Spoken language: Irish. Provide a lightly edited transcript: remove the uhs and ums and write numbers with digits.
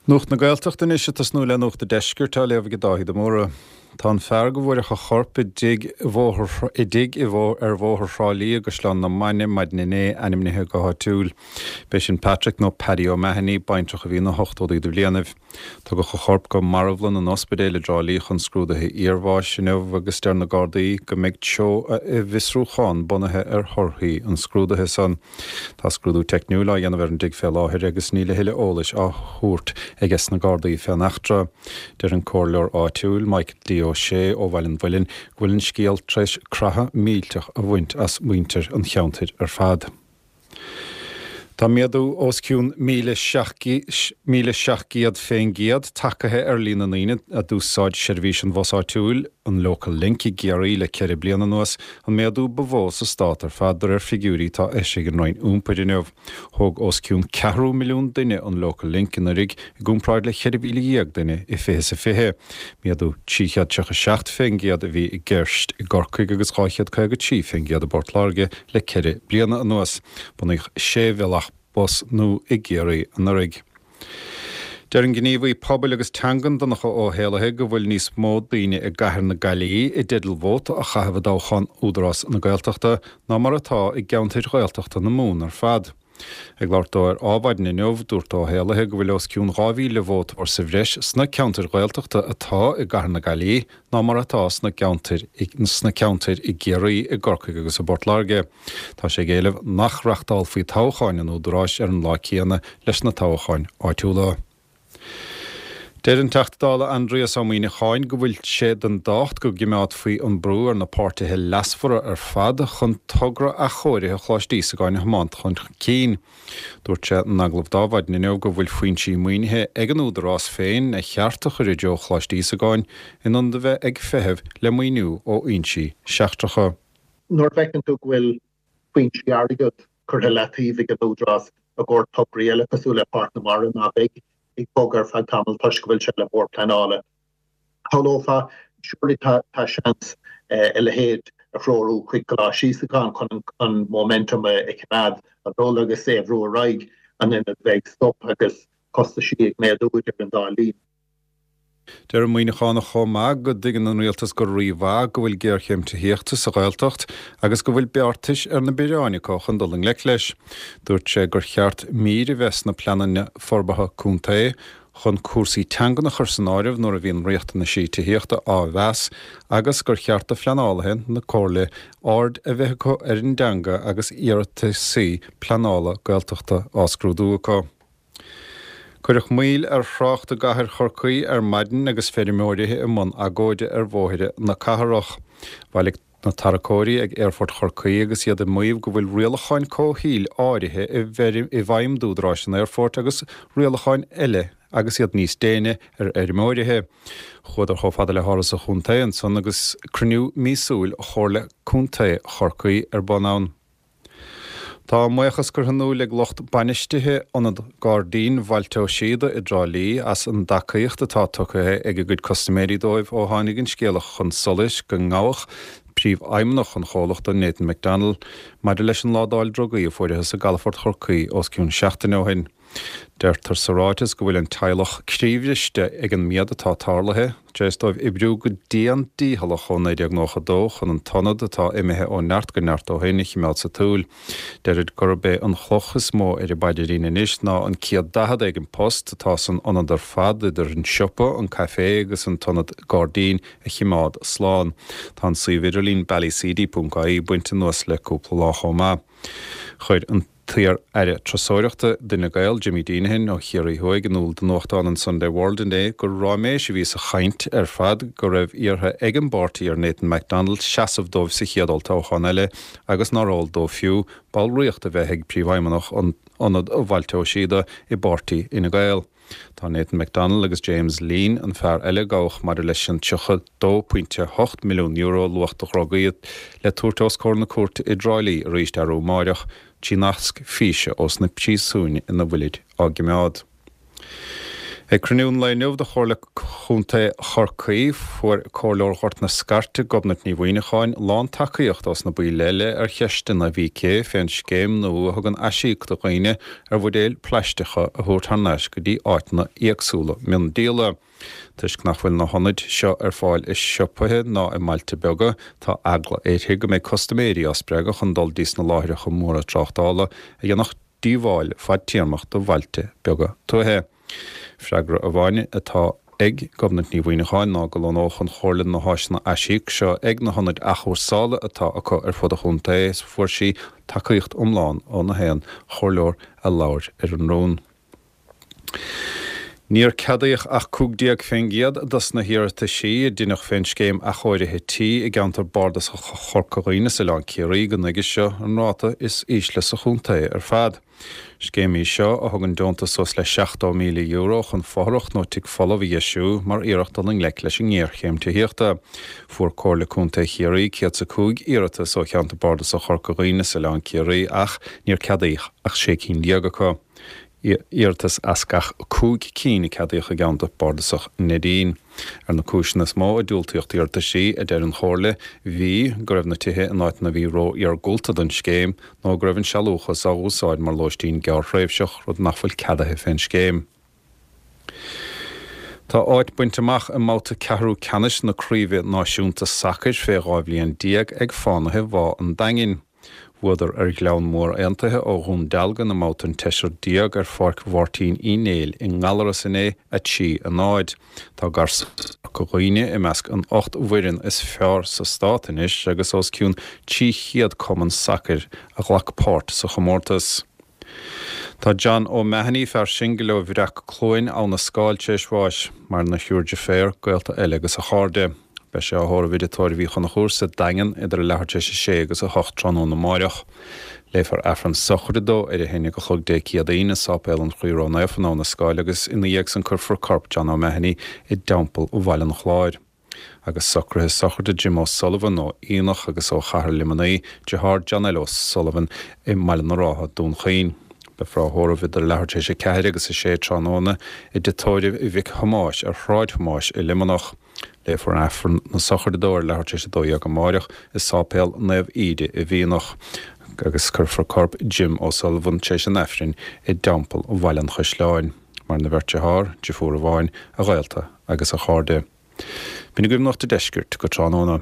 Nuacht na Gaeltachta anois ag tosnú le Nuacht a' Deiscirt á léamh ag Dáithí de Mórdha. Tá an fear go bhfuaireadh a chorp i dtigh i dtigh i ar Bhóthar Thrá Lí i gCaisleán na Mainge maidin inné ainmnithe go háitiúil. B'é sin Patrick nó Paddy O'Mahony, baintreach a bhí ina ochtóidí de bhlianaibh. Tugadh a chorp go marbhlann an ospidéil i dTrá Lí chun scrúduithe iarbháis inniu agus deir na Gardaí go mbeidh treo a bhfiosrúchán bunaithe ar thorthaí an scrúdaithe san. Tá scrúdú teicniúil á dhéanamh ar an dtigh fé láthair agus níl a thuilleadh eolais á thabhairt aiges na Gardaí fén eachtra. Deir an comhairleoir áitiúil, Michael D. Ó Sé ó Bhaile an Mhuilinn, go bhfuil an scéal tar éis croitheadh millteach a bhaint as muintir an cheantair ar fad. Tá méadú os cionn 1,700 fén gcéad tagaithe ar líon na ndaoine a d'úsáid seirbhís an bhus áitiúil, an Local Link, i gCiarraí le 4 bliana anuas, an méadú ba mhó sa stát ar fad de réir figiúirí atá eisithe ag an Roinn Iompair inniu. Thóg os cionn ceathrú milliún duine an Local Link anuraidh i gcomparáid le 14,000 duine i 2020. Méadú 337 fén gcéad a bhí i gceist i gCorcaigh agus 253 fén gcéad i bPort Láirge le ceithre bliana anuas. Bunaíodh sé bhealach bus nua i gCiarraí anuraidh. Deir an gníomhaí pobail agus teangan Donncha Ó hÉallaithe go bhfuil níos mó daoine i gcathair na Gaillimhe i dteideal vóta a chaitheamh i dtoghchán Údarás na Gaeltachta ná mar atá i gceantair Ghaeltachta na Mumhan ar fad. Ag labhairt dó ar Adhmhaidin inniu, dúirt Ó hÉallaithe go bhfuil os cionn 2,000 vótóir sa bhreis sna ceantair Ghaeltachta atá i gcathair na Gaillimhe ná mar atá sna ceantair sna ceantair i gCiarraí, i gCorcaigh agus i bPort Láirge. Tá sé ag éileamh nach reachtálfaí toghcháin an Údaráis ar an lá céanna leis na toghcháin áitiúla. Deir an Teachta Dála Aindrias Ó Muíneacháin go bhfuil sé den dtábhacht go gcimeádfaí an brú ar na páirtithe leasmhara ar fad chun togra athchóirithe Choláiste Íosagáin a thiomáint chun cinn. Dúirt sé in agallamh d'Adhmhaidin inniu go bhfuil foinsí maoinithe ag an Údarás féin a cheart a chur i dtreo Choláiste Íosagáin in ionad a bheith ag feitheamh le maoiniú ó fhoinsí seachtracha. Nuair a fheiceann tú go bhfuil foinsí airgid curtha i leataobh ag an Údarás i gcomhair tograí eile cosúil le Páirc na Mara ná beidh ag bogadh ar feadh tamaill toisc go bhfuil sé le Bord Pleanála, shamhlófá, surely tá seans a leithéid a threorú chuig Coláiste Íosagáin chun an momentum a choimeád ag dul agus é a bhrú ar aghaidh in ionad bheith ag stop agus costaisí ag méadú idir an dá linn. Deir an Muíneachánach chomh maith go dtuigeann an rialtas go rímhaith go bhfuil géarchéim tithíochta sa Ghaeltacht agus go bhfuil beartais ar na bioráin acu chun dul i ngleic leis. Dúirt sé gur cheart mír a bheith sna pleananna forbartha contae chun cúrsaí teangan a chur san áireamh nuair a bhíonn riachtanaisí tithíochta á mheas agus gur cheart do phleanálaithe na comhairle aird a bheith acu ar an dteanga agus iarrataisí pleanála Gaeltachta á scrúdú acu. Cuireadh moill ar thrácht i gcathair Chorcaí ar maidin agus feirmeoirí i mbun agóide ar bhóithre na cathrach. Bhailigh na tarracóirí ag Aerfort Chorcaí agus iad ag maíomh go bhfuil rialacháin comhshaoil áirithe i bhfeidhm d'údaráis an aerfoirt agus rialacháin eile agus iad níos déine ar fheirmeoirithe. Chuadar chomh fada le hÁras an Chontae ansan agus cruinniú míosúil Chomhairle Contae Chorcaí ar bun ann. Tá a mbuíochas curtha in iúl ag lucht bainistithe Ionad Gairdín Bhailte Ó Síoda i dTrá Lí as an dtacaíocht atá tugtha ag a gcuid custaiméirí dóibh ó tháinig an scéala chun solais go ngabhadh príomhfheidhmeannach an chomhlachta, Nathan McDonnell, maidir leis an ládáil drugaí a fuarathas i gcalafort Chorcaí os cionn seachtaine ó shin. Deirtear sa ráiteas go bhfuil an teaghlach croíbhriste ag an méad atá tarlaithe, tar éis dóibh oibriú go dian dícheallach ó 1992 chun an t-ionad, atá imithe ó neart go neart ó shin, a chimeád sa tsiúl. Deirid gurb é an chloch is mó ar a bpaidirín anois ná an 140 éigin post atá san ionad ar fad, idir an siopa, an caifé agus an t-ionad gairdín, a chimeád slán. Tá an suíomh idirlín ballyseedy.ie bainte anuas le cúpla lá chomh maith. Chuir an. t-iar-aire turasóireachta d'Fhine Gael, Jimmy Deenihan ó Chiarraí Thuaidh, in iúl do nuachtán an Sunday World inné gur ráiméis a bhí sa chaint ar fad go raibh iarrtha ag an bpáirtí ar Nathan McDonnell seasamh dóibh sa chéad olltoghchán eile agus nár eol dó fiú ballraíocht a bheith ag príomhfheidhmeannach Ionad Bhailte Ó Síoda i bpáirtí Fhine Gael. Tá Nathan McDonnell agus James Leen, an fear eile a gabhadh maidir leis an €32.8 milliún luach de dhrugaí, le tabhairt os comhair na cúirte i dTrá Lí arís arú amáireach trí nasc físe ós na príosúin ina bhfuilid á gcimeád. Ag cruinniú an lae inniu de Chomhairle Chontae Chorcaí, fuair Comhairleoir Ghort na Scairte, Gobnait Ní Mhuineacháin, lán-tacaíocht ós na baill eile ar cheisteanna a bhí aici fén scéim nua a thugann aisíoc do dhaoine ar bhuidéil plaisteacha a thabhairt thar n-ais go dtí áiteanna éagsúla miondíola. Toisc nach bhfuil na hionaid seo ar fáil i siopaithe ná i mbailte beaga, tá eagla uirthi go mbeidh custaiméirí á spreagadh chun dul dtí sna láithreacha móra tráchtála a dhéanfadh díobháil fadtéarmach do bhailte beaga tuaithe. Freagra amháin atá ag Gobnait Ní Mhuineacháin ná go lonnódh an Chomhairle na háiseanna aisíoc seo ag na hionaid athchúrsála atá acu ar fud an chontae is fuair sí tacaíocht iomlán ó na haon chomhairleoir a labhair ar an rún. Níor ceadaíodh ach 15% dos na hiarrataisí a deineadh fén scéim athchóirithe tí i gceantar bardasach Chorca Dhuibhne is Oileán Ciarraí go nuige seo, an ráta is ísle sa chontae ar fad. Scéim í seo a thugann deontas suas le €70,000 chun fothrach nó tigh folamh a dheisiú mar iarracht dul i ngleic leis an ngéarchéim tithíochta. Fuair Comhairle Contae Chiarraí 105 iarratas ó cheantar bardasach Chorca Dhuibhne is Oileán Ciarraí ach níor ceadaíodh ach 16 cinn acu. Iarratas as gach 5 cinn a ceadaíodh i gceantar bardasach Neidín. Ar na cúiseanna is mó a diúltaíodh d'iarrataisí, a deir an Chomhairle, bhí, go raibh na tithe in áiteanna a bhí ró-iargúlta don scéim, nó go raibh an sealúchas á úsáid mar lóistín gearrthréimhseach, rud nach bhfuil ceadaithe fén scéim. Tá áit bainte amach i mbabhta ceathrú ceannais na Craoibhe Náisiúnta Sacair fé 12 bhliain ag Fánaithe Bhá an Daingin. Bhuadar ar Ghleann Mór Aontaithe ó Dhún Dealgan i mbabhta an tseisir déag ar Pháirc Mháirtín Uí Néill i nGallaras inné, 3, 0. Tá Garsúin Chorca Dhuibhne i measc an 8 bhfoireann is fearr sa stát anois agus os cionn 300 cumann sacair a ghlac páirt sa chomórtas. Tá John O'Mahony, fear singil ó Bhreac Cluain, Abha na Scáil, tar éis bháis. Maireann a thriúr deirféar, gaolta eile agus a chairde. Beidh sé á thórramh i dTigh Tórraimh Uí Chonchúir sa Daingean idir a leathuair tar éis a sé agus a hocht tráthnóna amáireach. Léifear Aifreann sochraide dó ar a haon déag a chlog Dé Céadaoin i Sáipéal an Chroí Ró-Naofa in Abha na Scáil agus ina dhiaidh san cuirfear corp John O'Mahony i dTeampall Bhaile an Chláir. Agus socruithe sochraide Jim O'Sullivan ó Fhíonach agus ó Chathair Luimnigh, deartháir John L. O'Sullivan i mBaile na Rátha, Dún Chaoin. Beifear á thórramh idir leathuair tar éis a ceathair agus a sé tráthnóna i dtigh tórraimh Mhic Thomáis ar Shráid Thomáis i Luimneach. Léifear Aifreann na sochraide dó ar leathuair tar éis a 12 amáireach i Sáipéal Naomh Íde i bhFíonach agus cuirfear corp Jim O'Sullivan tar éis an Aifrinn i dTeampall Bhaile an Chaisleáin. Maireann a bheirt dearthár, deirfiúr amháin, a ghaolta agus a chairde. B'in agaibh Nuacht a' Deiscirt go tráthnóna.